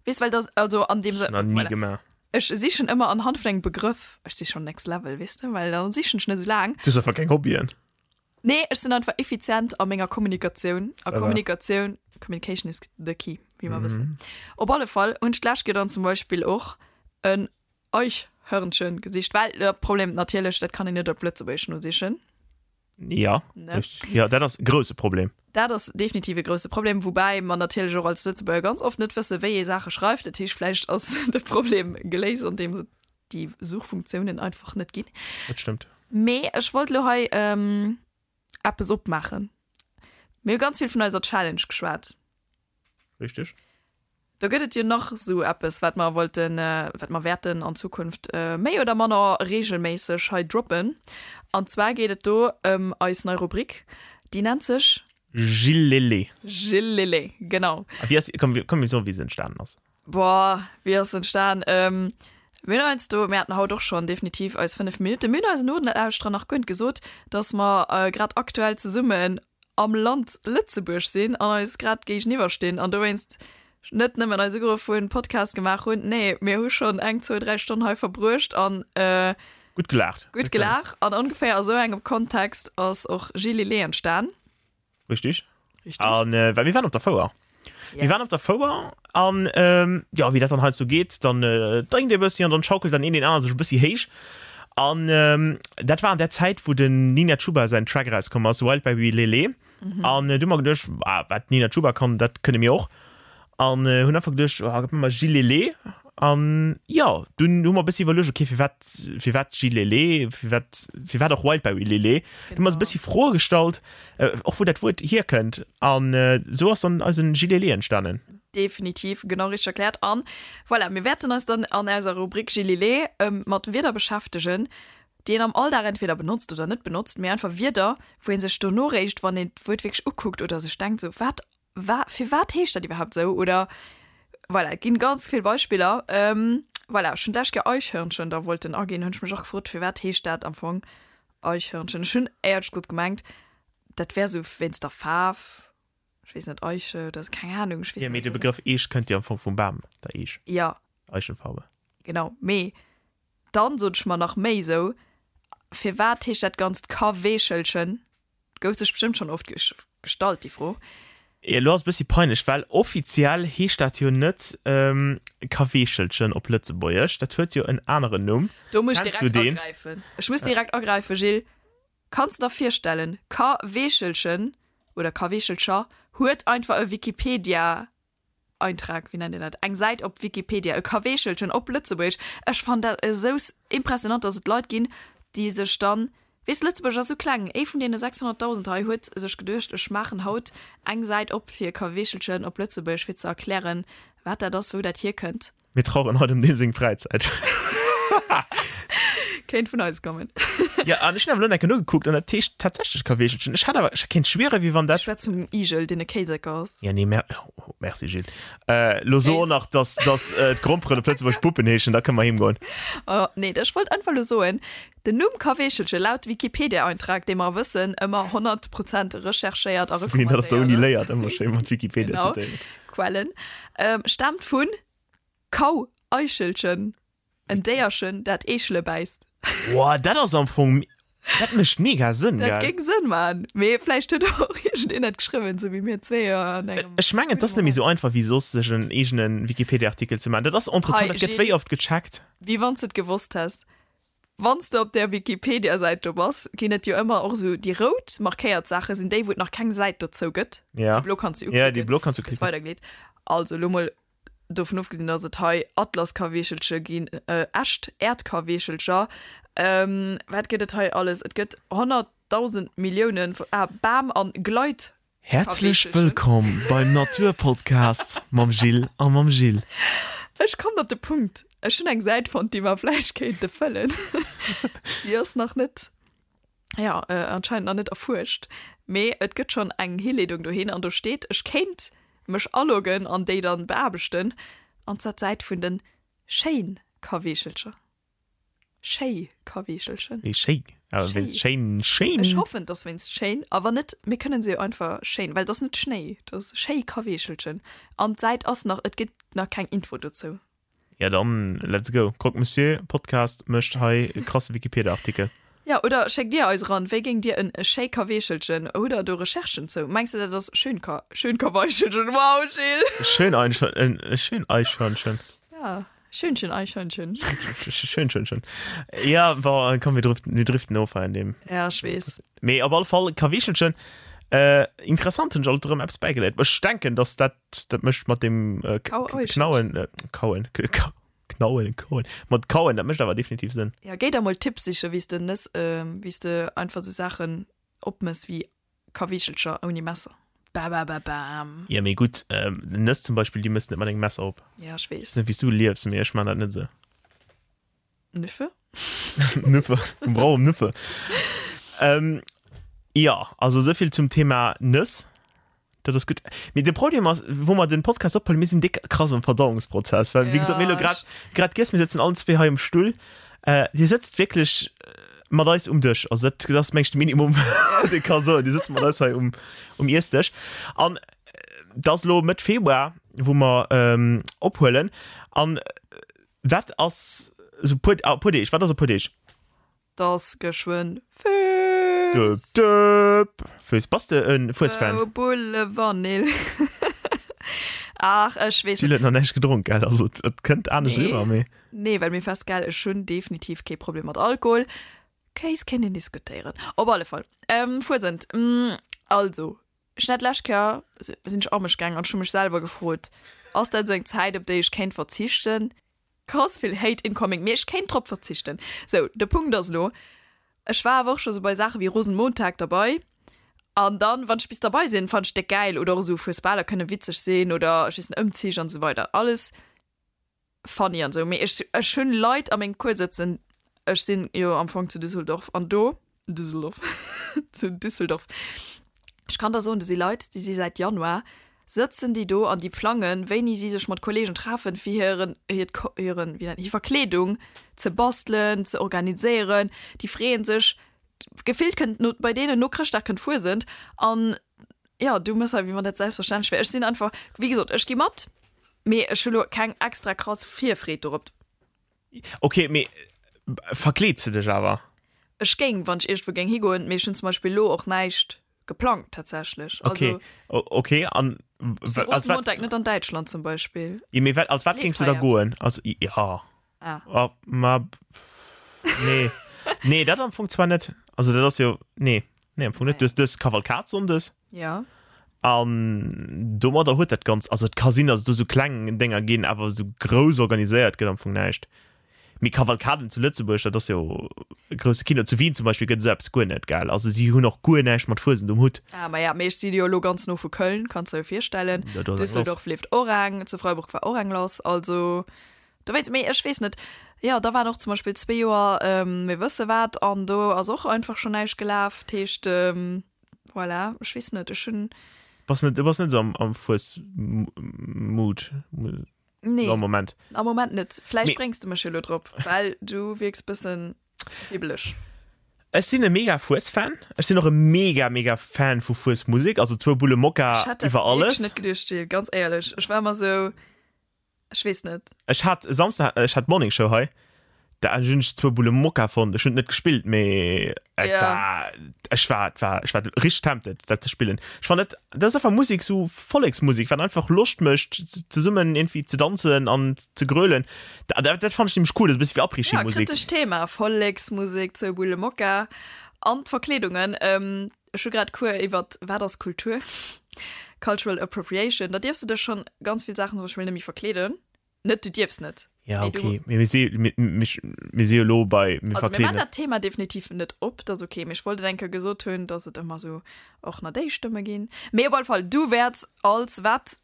weess well dass also an deem Sënn, nach ni gemaach. Ech sichen ëmmer anhand vun engem Begrëff, ech si schon next level weess de, well dann sichen ech net esou laang. Du hues einfach keng Hobbyen. Nee, ech sinn einfach effizient a menger Kommunikatioun a Kommunikatioun, communication is the key, wéi mer wëssen. Op alle Fall hunn ech d'lescht Kéier dann zum Beispill och en Eichhörnchen gesicht, well de Problem natierlech, dat kann een net op Lëtzebuergesch nosichen. Ja, Ne? richtig. Ja, dat ass e grousse Problem. Dat ass definitiv e grousse Problem, woubäi mer natierlech och als Lëtzebuerger ganz oft net wëssen, wéi ee Saache schreift. Dat heescht, vläicht ass de Problem geléist, andeems et déi Suchfunktiounen einfach net ginn. Dat stëmmt. Mee ech wollt elo hei eppes opmaachen. Mir hu ganz vill vun eiser Challenge geschwat. Richtig. Do gëtt et jo nach esou eppes, wat mer wollten, wat mer wäerten an Zukunft méi oder manner reegelméisseg hei droppen. An zwar geet et do ëm eis nei Rubrik, déi nennt sech. Gillele. Gillele, genau. A wéi ass, komm, komm mir soen, wéi se entstanen ass. Boah, wéi ass se entstan? Mir hunn heiansdo, mir haten haut och schonn definitiv eis 5 Minutten, mir hunn eisen Nolauschterer nach guer net gesot, dass mer grad aktuell zesummen am Land Lëtzebuerg sinn an eis grad géigeniwwer stinn an dowéinst net nëmmen eis ugeruff hunn, Podcast gemaach hunn, nee, mir hu schonn eng, zwou, dräi Stonnen hei verbruecht an Gutt gelaacht. Gutt gelaacht an ongeféier a sou engem Kontext ass och Gilles entstan. Richtig. Richtig. An äh, well mir waren op der Fouer. Yes. Mir waren op der Fouer an ähm, ja, wéi dat dann halt so geet, dann äh, drénkt ee bëssi an dann schaukelt dann een den aneren sech e bëssi héich. An ähm, dat war an der Zäit, wou den Nina Chuba säin Track erauskomm ass, Wildberry Lele. Mhm. An äh, du hu mer geduecht, ah, wat d'Nina Chuba kann, dat kënne mir och. An äh, hunn einfach geduecht, oh, gëtt mer Gilele. An ja, dunn hu mer e bëssi iwwerluecht, okay, firwat, firwat Gilele, firwat, firwat och Wildberry Lele. Genau. Du hu mer e bëssi Froe gestallt, äh, och wou dat Wuert hierkënnt. An äh, sou ass dann eisen Gilele entstanen. Definitiv, genau richteg erkläert. An voilà, mir wäerten eis dann an eiser Rubrik Gilele ähm, mat Wierder beschäftegen, déi een am Alldag entweder benotzt oder net benotzt, mee einfach Wierder, wou ee sech dono réischt, wann een d'Wuert wierklech ukuckt oder sech denkt, sou, wat Wa firwat heescht dat iwwerhaapt esou? Oder voilà, et ginn ganz vill Beispiller. Ähm, voilà, ech hunn d'lescht Kéier Eichhörnchen da wollten aginn, hunn ech mech och gefrot, firwat heescht dat am Fong Eichhörnchen? Ech hunn éierlech gesot gemengt, dat wär esou wéinst der Faarf, ech weess net, Eiche oder sou, keng Ahnung, ech weess Ja, net, mee was de dat Begrëff Eech kënnt jo am Fong vum Bam, der Eech, Ja, Eichenfarbe. genau, mee dann sot ech mer nach méi esou, firwat heescht dat Ganzt Kaweechelchen? Gouf sech bestëmmt schonn oft gestallt, déi Fro. Elo ass e bëssi peinlech, well offiziell heescht dat jo net Kaweechelchen op Lëtzebuergesch, dat huet jo en aneren Numm. Do muss ech direkt agräifen. Ech muss direkt agräifen, Gilles. Kanns de der virstellen, Kaweechelchen oder Kaweechelcher huet einfach e Wikipedia Eintrag, wéi nennt een dat, eng Säit op Wikipedia, e Kaweechelchen op Lëtzebuergesch. Ech fannen dat esou impressionant, dass et Leit ginn, déi sech dann, weess, Lëtzebuerg ass esou kleng, ee vun deene 600.000 hei huet sech geduecht, ech maachen haut eng Säit op fir Kaweechelchen op Lëtzebuergesch, fir ze erklären, wat dat ass, wou dat hierkënnt. Mir traueren haut ëm deem seng Fräizäit. Kéint vun eis kommen. Ja, an ech hunn awer elo nach eng Kéier nogekuckt an dat heescht tatsächlech Kaweechelchen. Ech hat awer, ech kéint schwieren, wéi wann dat. Du schwätz vum Igel, deen e Kéiseker ass. Ja, nee, mer, oh, merci Gilles. Äh, lo so och nach, dass, dass äh, d'Gromperen op Lëtzebuerg Puppen heeschen, da kënne mer heem goen. Oh, nee, ech wollt einfach lo soen, den Numm Kaweechelche laut Wikipedia-Eintrag, dee mer wëssen, ëmmer 100 Prozent recherchéiert a Wéi een dat op der recommandéiert Uni ass. léiert, ëmmer schéi mat Wikipedia Genau. zitéieren. Quellen, ähm, staamt vun. Kau-Eichelchen, en Déierchen, dat Eechele bäisst. Woah, dat ass am Fong, dat mécht mega Sënn, Dat gell? géing Sënn maachen, mee vläicht huet och iergendeen dat geschriwwen, sou wéi mir zwee an engem. Ech mengen, et ass net méi sou einfach wéi soss, sech en eegene Wikipedia-Artikel ze maachen. Dat ass entretemps, Hei, dat gëtt Gilles, wéi oft gecheckt. Wéi wann s de et gewosst häss. Wann s de op där Wikipedia-Säit do bass, ginn et jo ëmmer och esou déi rout markéiert Saache sinn déi, wou et nach keng Säit dozou gëtt. Ja. Déi blo kanns du Ja, déi uklicken, blo kanns du gëss klicken. weidergeleet. Also elo mol dovun ofgesinn, dass et hei Atlaskaweechelche ginn, echt Äerdkaweechelcher, wat gëtt et hei alles? Et gëtt 100.000 Millioune, ah, Bam an Gleit. Häerzlech wëllkomm beim Naturpodcast mam Jill a mam Gilles. Ech kommen op de Punkt. Ech hunn eng Säit fonnt, déi mer vläicht kéinte fëllen. Déi ass nach net, jo, anscheinend nach net erfuerscht, mee et gëtt schonn eng Hileedung dohin an do steet, ech kéint mech aloggen an déi dann beaarbechten, an zwar d'Säit vun den Schéin-Kaweechelcher. Schéi Kaweechelchen. Wéi schéi? Awer wéinst schéin, schéin? Ech hoffen, et ass wéinst schéin. A wann net, mir kënnen se jo einfach schéin, well et ass net Schnéi, et ass schéi Kaweechelchen. An d'Säit ass nach, et gëtt nach keng Info dozou. Ja dann, let's go. Croque Monsieur Podcast mécht hei e krasse Wikipedia-Artikel. Ja, oder schéckt dir eis eran, wéi géingt dir en schéi Kaweechelchen, hutt der do Recherchen zou? Mengs de dat ass schön Ka, schön Kaweichelchen, wow Gilles! Schön Einhörnchen, schön Eichhörnchen. Ja. Schönchen Eichhörnchen. Schön, schön, schön. Ja, bon, komm, wir driften, wir driften of hei an deem. Ja, ech weess. Mee op alle Fall, Kaweechelchen, äh, interessant, hunn ech alt erëm eppes bäigeléiert. Ech denken, dass dat, dat mécht mat dem äh, Kau Eichhörnchen. Knauen, äh, Kauen, K Knauen, Kauen, mat Kauen, dat mécht awer definitiv Sënn. Ja, géi der mol Tipps sichen, wéi s de Nëss, äh, wéi s de einfach sou Saachen opmëss wéi Kaweechelcher ouni Messer. Babababam. Ja, mee gutt, Nëss zum Beispill, déi mëss net mat engem Messer op. Ja, ech weess. Weess net, wéi s du liefs, mee ech man dat net esou. Nüffe? Nüffe, mir brauchen Nüffe. Ähm, ja, also esou vill zum Thema Nëss. Dat ass gutt. Mee de Problem ass, wou mer den Podcast ophuelen, mir sinn déck krass am Verdauungsprozess, well wéi gesot, mir hu lo grad, grad giess, mir sëtzen allen zwee hei um Stull. Äh, Dir sëtzt wierklech mat eis um Dësch, also dat, dat ass meng ech de Minimum, wat ee ka soen. Dir sëtzt mat eis hei um, um Iessdësch. An et ass lo Mëtt Februar, wou mer ähm, ophuelen. An wat ass esou puer, ah, puer Deeg, wat ass a puer Deeg? T'ass geschwënn Fues! Döp, döp! Fues, bass de en Fuesfan? Zwou Bulle Vanill. Ach, ech weess net. Jill huet nach näischt gedronk, gell? Also et kënnt anescht Nee. eriwwer, mee. Nee, well mir fest, gell, ech hunn definitiv kee Problem mat Alkohol. Kéis kéint een diskutéieren. Op alle Fall, ähm, Fuesent, also, ech hunn dat d'lescht Kéier, sinn ech a mech gaangen an ech hu mech selwer gefrot, ass dat esou eng Zäit, op déi ech kéint verzichten? Krass vill Hate incoming, mee ech kéint drop verzichten. Sou, de Punkt ass elo, ech war awer och scho sou bei Saache wéi Rosenmontag derbei an dann, wann ech bis derbei sinn, fannen ech déck gäil oder och esou Fuesbaler kënne witzeg sinn oder ech weess net, Ëmzich an esou weider, alles funny an esou. Mee ech, ech hunn Leit a mengem Cours sëtzen, ech sinn jo am Fong zu Düsseldorf an do, Düsseldorf, zu Düsseldorf, ech kann der soen, do si Leit, déi si säit Januar Sëtzen déi do an déi plangen, wéini si sech mat Kollegen treffen, fir hiren, hiert, hiren, wéi nennt, hir Verkleedung ze bastelen, ze organiséieren. Déi freeën sech, gefillt kënnt no, bei deenen no Chrëschtdag kënnt Fuesent an jo, du mëss hei, wéi wann dat selbstverständlech wär. Ech sinn einfach, wéi gesot, ech gi mat, mee ech hu lo keng extra krass Virfreed dorop. Ok, mee verkleeds de dech awer? Ech géing, wann ech iergendwou géing higoen, mee ech hunn zum Beispill elo och näischt geplangt tatsächlech. Okay, Also, okay, an si Rosenmontag net an Däitschland zum Beispill. Ja, mee wat, als wat géings de da goen? Als, ja. Ah. Oh, ma, nee. Nee, dat am Fong zwar net. Also dat ass jo, nee, nee, am Fong net. Du hues, du hues Kavalkad sonndes. Ja. An domadder huet dat Ganzt, also et ka sinn, datt et do sou kleng Dénger ginn, awer sou grouss organiséiert gëtt am Fong näischt. Mee Kavalkaden zu Lëtzebuerg, dat ass jo e grousse Kino. Zu Wien zum Beispill gëtt esou eppes guer net, gell? Also si hunn och guer näischt mat Fuesent um Hutt. Ah, ma ja, mee ech si jo elo ganz no vu Köln, kanns der jo virstellen. Ja, do ass eng lass. Düsseldorf leeft och eng, zu Freiburg war och eng lass, also dowéinst. Mee ech weess net, jo, da waren och zum Beispill zwee Joer mir wësse wat an do ass och einfach schonn näischt gelaf. Dat heescht, voilà, ech weess net, ech hunn. Bass net, du bass net esou am, am Fues-Mood? Nee. Am Moment. Am Moment net. Vläicht Mee- bréngs de mech jo lo drop, well du wierks bëssen wibbeleg. Ech sinn e mega Fues-Fan. Ech sinn och e mega, mega Fan vu Fues-Musek. Also zwou Bulle Mokka Ech hätt dat iwwer wierklech alles. net geduecht, Jill, ganz éierlech. Ech war ëmmer sou. Ech weess net. Ech hat e Samsden, ech hat Morning Show hei, da hunn ech zwou Bulle Mokka fonnt. Ech hunn et net gespillt, mee et Ja. war, ech war, et war, ech war richteg tempted, dat ze spillen. Ech fannen dat, dat ass einfach Musek, sou Volleksmusek, wat einfach Loscht mécht, zesummen iergendwéi ze danzen an ze grölen. Dat, dat, dat fannen ech nämlech cool, dat ass e bëssi wéi Ja, Après-Ski-Musek. kritescht Thema, Volleksmusek, zwou Bulle Mokka an d'Verkleedungen. Ech hu grad Cours iwwert wat ass Kultur, Cultural Appropriation. Da dierfs de dech schonn ganz vill Saachen zum Beispill net méi verkleeden. Net du dierfs net. Ja, Mee du- okay. Mee mir si, mir, mir, mir si jo elo bei, mir Also mir maachen verkleeden. dat Thema definitiv net op, dat ass okay. Mee ech wollt et eng Kéier gesot hunn, dass et ëmmer esou och nach déi Stëmme ginn. Mee op alle Fall, du wäerts als wat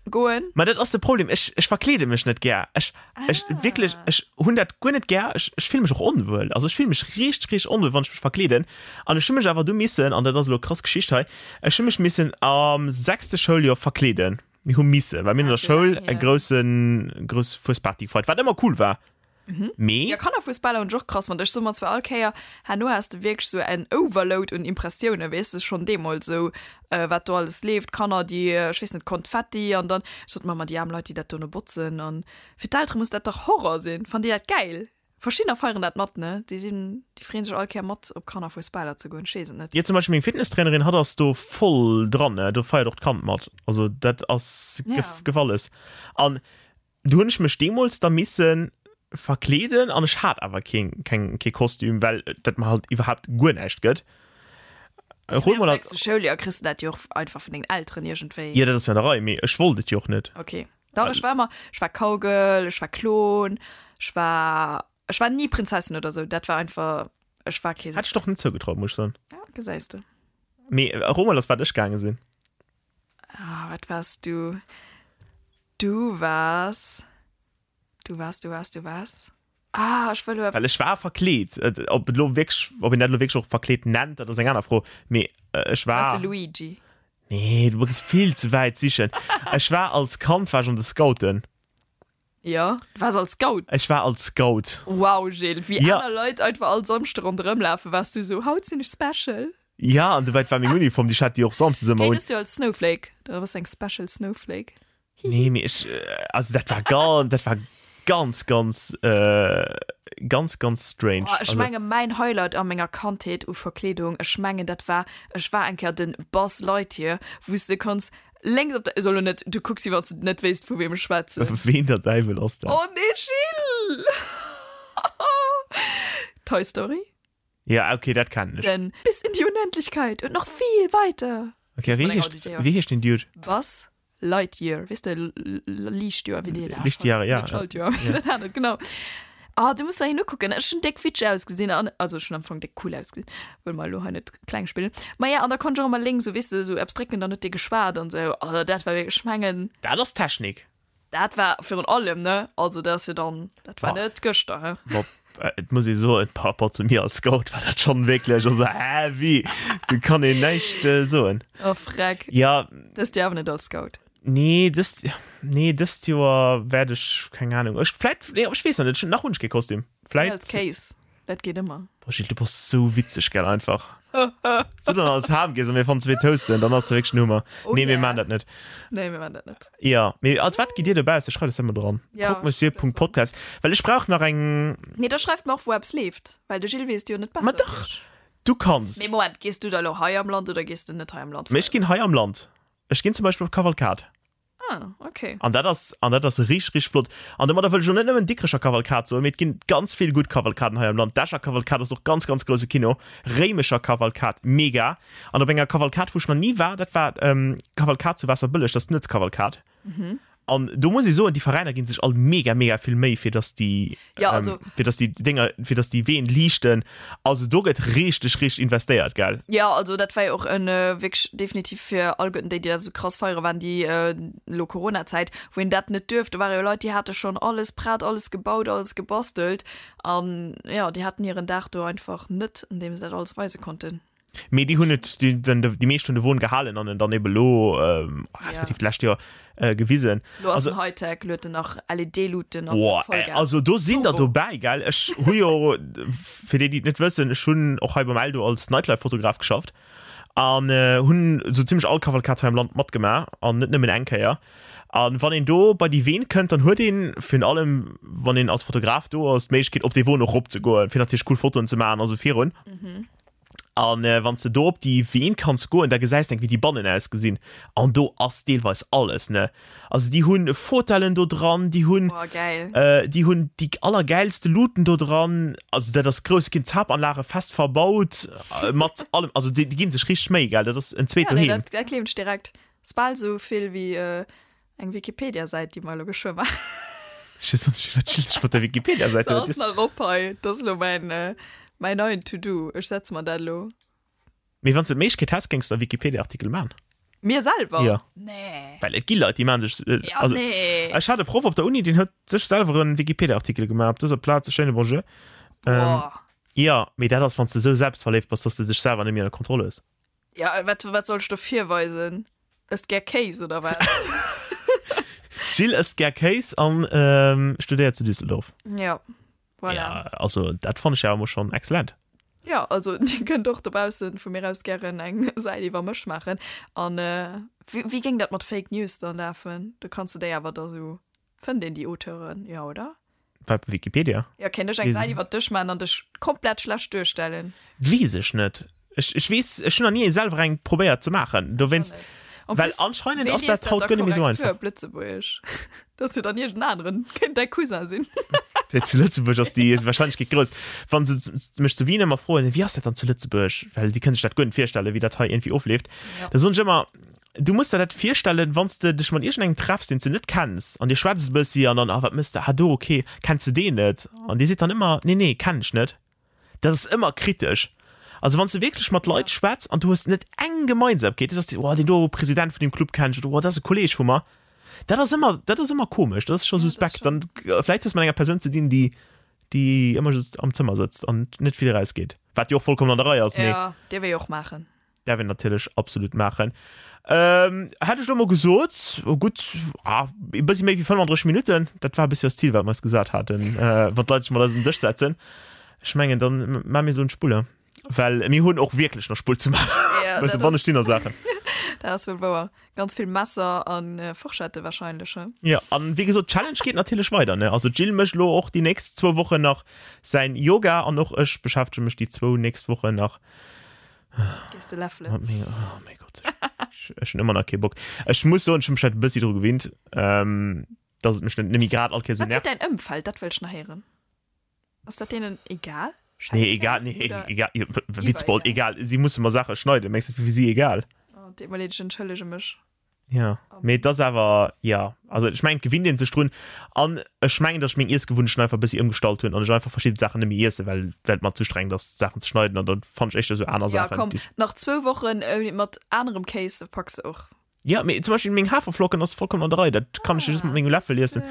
goen? Ma dat ass de Problem, ech, ech verkleede mech net gär. Ech, ech, Ah. wierklech, ech hunn dat guer net gär. Ech, ech fille mech och onwuel. Also ech fille mech richteg, richteg onwuel, wann ech mech verkleeden. An ech hu mech awer du missen, an dat ass elo krass Geschicht hei, ech hu mech missen am sechste Schouljoer verkleeden. Mir hu missen, well mir hunn an der Schoul e groussen, grouss Fuesparty gefeiert, wat ëmmer cool war. Mee. Jo, Kannerfuesbaler hunn ech och krass fonnt. Ech soe mer zwar all Kéier, herno has de wierklech sou en Overload un Impressiounen, weess de, schonn deemools esou, wat do alles leeft, Kanner, déi, ech weess net, Konfetti an dann, ech sot mer ëmmer, déi aarm Leit, déi dat dono botzen an fir d'Eltere muss dat dach Horror sinn. Fannen déi dat gäil? Verschiddener feieren dat mat, ne? Déi sinn, déi freeën sech all Kéier mat op Kannerfuesbaler ze goen, ech weess et net. Jo, zum Beispill meng Fitnesstrainerin, hatt ass do voll dran, ne? Do feiert och d'Kand mat. Also dat ass Ja. Gefalles. An do hunn ech mech deemools da misse verkleeden an ech hat awer keen, keng, kee Kostüm, well dat mer halt iwwerhaapt guer näischt gëtt. Hol mol am sechste Schouljoer kriss de dat jo och einfach vun dengen Elteren iergendwéi. Jo, dat ass jo an der Rei, mee ech wollt et jo och net. Okay. Dach, ech war ëmmer, ech war Cowgirl, ech war Klon, ech war, ech war ni Prinzessin oder sou, dat war einfach, ech war kee. Hätt ech der och net zougetraut, muss ech soen. Ja, gesäis de. Mee ero mol, als wat ech gaange sinn. Ah, wat waars du? Du waars, du waars, du waars, du waars. Ah, ech wëll elo eppes. Well ech war verkleet. Ob et elo wierklech, ob een dat elo wierklech och verkleet nennt, dat ass eng aner Fro. Mee ech war. Waars de Luigi? Nee, du gees vill ze wäit sichen. Ech war als Kand war ech an de Scouten. Jo, du waars als Scout? Ech war als Scout. Wow, Gilles, wéi Ja. aner Leit einfach all Samschde ronderëm lafen, waars du esou, haut sinn ech special. Ja, an dobäi, et war meng Uniform, déi ech hat déi och samsdes ëmmer Okay, un. dëst Joer als Snowflake, da bass du eng special Snowflake. Nee, mee ech, also dat war ganz, dat war ganz, ganz, äh, ganz, ganz strange. Oh, ech Also, menge mäin Highlight a menger Kandheet u Verkleedung, ech mengen dat war, ech war eng Kéier den Buzz Lightyear, wou s de konns lénks op der, ech soll lo net, du kucks wéi wann s de net wéisst vu weem ech schwätzen. Ween der Däiwel ass dat? Oh nee, Gilles! Toy Story? Ja, okay, dat kennen ech. Den bis in die Unendlichkeit und noch viel weiter. Okay, wéi heescht, wéi heescht den Dude? Buzz Lightyear, weess de, Liichtjoer, wéi déi dat Lichtjahre, ja. Schaltjoer, wéi dat aner, genau. Ah, du muss der hin ukucken. Ech hunn déck witsch ausgesinn an, also ech hunn am Fong déck cool ausgesinn, wëll mer elo hei net kleng spillen. Ma ja, an da konnt ech och ëmmer lénks esou, weess de, esou eppes drécken, dann huet dee geschwat an esou. Also dat war wierklech, ech mengen. Dat ass Technik. Dat war virun allem, ne? Also dat ass jo dann, dat war net gëschter, he? Bob, et muss ee soen, par rapport zu mir als Scout war dat schonn wierklech, also heavy, do kann een näischt soen. Oh freck. Ja. Dëst Joer awer net als Scout? Nee, dëst, nee, dëst Joer wäert ech, keng Ahnung, ech vläit, nee, ech weess nach net, nach hunn ech kee Kostüm. Vläit. Als Case. Dat geet ëmmer. Boah Gilles, du bass sou witzeg, gell, einfach. Sou dann als Ham gees an mir fannen zwee Toasten, dann ass de wierklech den Hummer. Oh Nee, mir yeah. maan dat net. Nee, mir maan dat net. Jo, mee als wat gitt dir dobausse? Schreift eis dat mol dran. Ja, Croque-monsieur.podcast. Well ech brauch nach eng. Nee, da schreift mer och, wou eppes leeft, well de Gilles weess et jo net besser Ma wéi dach, ech. du kanns. Mee Moment, gees du da elo hei am Land oder gees de net hei am Land Mee ech feieren? ginn hei am Land. Ech ginn zum Beispill op Kavalkad. Ah, okay. An dat ass, an dat ass richteg, richteg flott. An domadder wëll ech elo net nëmmen Dikrecher Kavalkad soen, mee et ginn ganz vill gutt Kavalkaden hei am Land. D'Escher Kavalkad ass och ganz, ganz grousse Kino. Réimecher Kavalkad, mega. An op enger Kavalkad, wou ech nach ni war, dat war d'Kavalkad zu Waasserbëlleg, dat ass d'Nuetskavalkad. An do muss ee soen, déi Veräiner gi sech all mega, mega vill Méi, fir datt déi, Ja, also. fir datt déi Dénger, fir datt déi Ween liichten. Also do gëtt richteg, richteg investéiert, gell? Ja, also dat war jo och en wierklech definitiv fir alleguerten déi, déi dat esou krass feiere waren, déi elo Coronazäit, wou een dat net duerft. Do ware jo Leit, déi hate schonn alles prett, alles gebaut, alles gebastelt an jo, déi haten hiren Dag do einfach net, an deem se dat alles weise konnten. Mee déi hunn et, déi, den, déi meescht hunn de Won gehalen an en dann ebe lo, respektiv d'lescht Joer, gewisen. Lo ass Also, en Hightech, lo huet en nach LED-Luuten an boah, Vollgas. also do sinn der Turbo. dobäi, gell? Ech hu jo, fir déi, déi et net wëssen, ech hunn och hei beim Eldo als Nightlife-Fotograf geschafft an hunn esou zimmlech all Kavalkad hei am Land matgemaach an net nëmmen eng Kéier. An wann een do bei déi Ween kënnt, dann huet een, virun allem wann een als Fotograf do ass, d'Méiglechkeet op dee Won och eropzegoen, fir natierlech cool Fotoen ze maachen a sou virun. An wann s de do op déi Ween kanns goen, da gesäis de eng, wéi déi bannen ausgesinn. An do ass deelweis alles, ne? Also déi hunn Fotellen do dran, déi hunn, Boah, geil. déi hunn déi allergäilste Luuten do dran. Also dat ass grouss, ginn Zapanlage fest verbaut mat allem. Also déi ginn sech richteg Méi, gell? Dat ass en zweet Ja, nee, Doheem. dat, dat gleewen ech direkt. Ass bal sou vill wéi eng Wikipedia-Säit, déi mer elo geschwë maachen. Ech weess och net, wat chillst dech mat der Wikipedia-Säit? Se ass nach op hei. Dat ass elo mäin, mäin neien To-Do. Ech setze mer dat elo. Mee wann s de d'Méiglechkeet häss, géings de e Wikipedia-Artikel maachen? Mir selwer? Jo. Nee. Well et gi Leit, déi maache sech, Ja, also nee. ech hat e Proff op der Uni, deen huet sech selwer e Wikipedia-Artikel gemaach. Op dëser Plaz e schéine Bonjour. Boah. Jo, mee dat ass, wann s de esou selbstverléift bass, dass de dech selwer net méi ënner Kontroll hues. Ja, wat, wat soll ech do virweisen? Ësst gär Kéis oder wat? Jill ësst gär Kéis an ähm, studéiert zu Düsseldorf. Ja, voilà. Ja, also dat fann ech ja emol schonn excellent. Ja, also Dir kënnt och dobaussen vu mir aus gären eng Säit iwwer mech maachen. An äh, wéi, wéi géing dat mat Fake News dann lafen? Do kanns de déi awer da sou Fënnt een déi Auteuren? Jo, oder? Wat, Wikipedia? Jo, kéint ech eng Säit iwwer dech maachen an dech komplett schlecht duerstellen? Weess ech net. Ech, ech weess, ech hunn nach ni selwer eng probéiert ze maachen. Dowéinst, well anscheinend ass dat haut guer net méi esou einfach. Op Lëtzebuergesch. Dat ass jo dann iergend aneren. Kéint däi Cousin sinn. Déi zu Lëtzebuerg ass déi Wahrscheinlechkeet grouss. Wa se mech zu Wien ëmmer froen, wéi ass dat dann zu Lëtzebuerg, well déi kënne sech dat guer net virstellen, wéi dat hei iergendwéi ofleeft, da soen ech ëmmer, Du muss der dat virstellen, wann s de dech mat iergendengem treffs, deen s de net kenns, an dir schwätzt e bëssi an dann, Ah, wat mëss de? Ah, do, ok, kenns de deen net? An dee seet dann ëmmer, Nee, nee, kennen ech net. Dat ass ëmmer kritesch. Also wann s de wierklech mat Leit schwätz an du hues net eng Gemeinsamkeet, dat ass, oh, deen do President vun deem Club kennen ech oder oh, dat ass e Kolleeg vu mer, dat ass ëmmer, dat ass ëmmer komesch, dat ass scho suspekt. Dann vläicht hues de mat enger Persoun ze dinn, déi, déi ëmmer just am Zëmmer sëtzt an net vill erausgeet, wat jo och vollkommen an der Rei ass, mee. Jo, dierf ee jo och maachen. Därf een natierlech absolut maachen. Ähm, hätt ech lo mol gesot, oh gutt, ah, e bëssi méi wéi 35 Minutten, dat war e bëssi eist Zil, wat mer eis gesat haten, äh, wann d'Leit sech mat eis um Dësch setzen. Ech mengen, dann maache mir elo d'Spulle, well mir hunn och wierklech nach Spull ze maachen. Ja, Well dat dobanne ass- stinn nach Saachen. Dat ass wuel wouer. Ganz vill Messer an äh, Forschette wahrscheinlech, he? Ja, an wéi gesot, d'Challenge geet natierlech weider, ne? Also d'Jill mécht lo och déi nächst zwou Wochen nach säin Yoga an och ech beschäftege mech déi zwou nächst Wochen nach Gees de läffelen? Mat menger, oh mäi Gott, ech, ech hunn ëmmer nach kee Bock. Ech muss soen, ech hunn mech halt e bëssi dru gewinnt, ähm, dass et mech net méi grad all Kéier sou Wat seet nervt. däin Ëmfeld? Dat wëll ech nach héieren. Ass dat deenen egal? Nee, egal, nee, Oder egal, jo, Witzbold, iwwer egal. Si musse mer Saache schneiden, mengs du, et wier fir si egal? Oh, deet mer leed, ech entschëllege mech. Ja, mee et ass awer, ja, also ech mengen, et gewinnt ee sech drun. An ech mengen, datt ech meng Iessgewunnechten einfach e bëssi ëmgestallt hunn an ech einfach verschidde Saachen net méi iessen, well well et mer ze strengend ass, Saachen ze schneiden. An dann fannen ech éischter esou aner Ja, Saachen, komm, déi ech. nach zwou Wochen mat anerem Kéis, da packs de och. Ja, mee zum Beispill meng Haferflocken ass vollkommen an der Rei, dat kann ech jo just mat mengem Läffel iessen.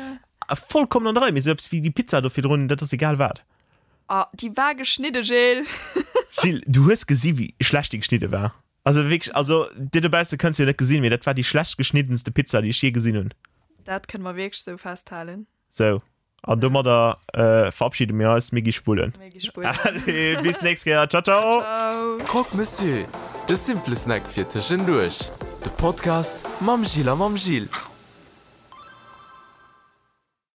Vollkommen an der Rei, mee esou eppes wéi déi Pizza do virdrun, dat ass egal wat. Ah, déi war geschnidde, Gilles! Gilles, du hues gesi wéi schlecht déi geschnidde war. Also wierklech, also dir dobausse kënnt se jo net gesinn, mee dat war déi schlecht geschniddenste Pizza, déi ech je gesinn hunn. Dat kënne mer wierklech sou festhalen. Sou, an domadder verabschiede mir eis. Mir gi spullen. Mir gi spullen. Allez, bis d'nächst Kéier. Ciao, ciao. Ciao. Croque Monsieur, de simple Snack fir tëschenduerch. De Podcast mam Gilles a mam Gilles.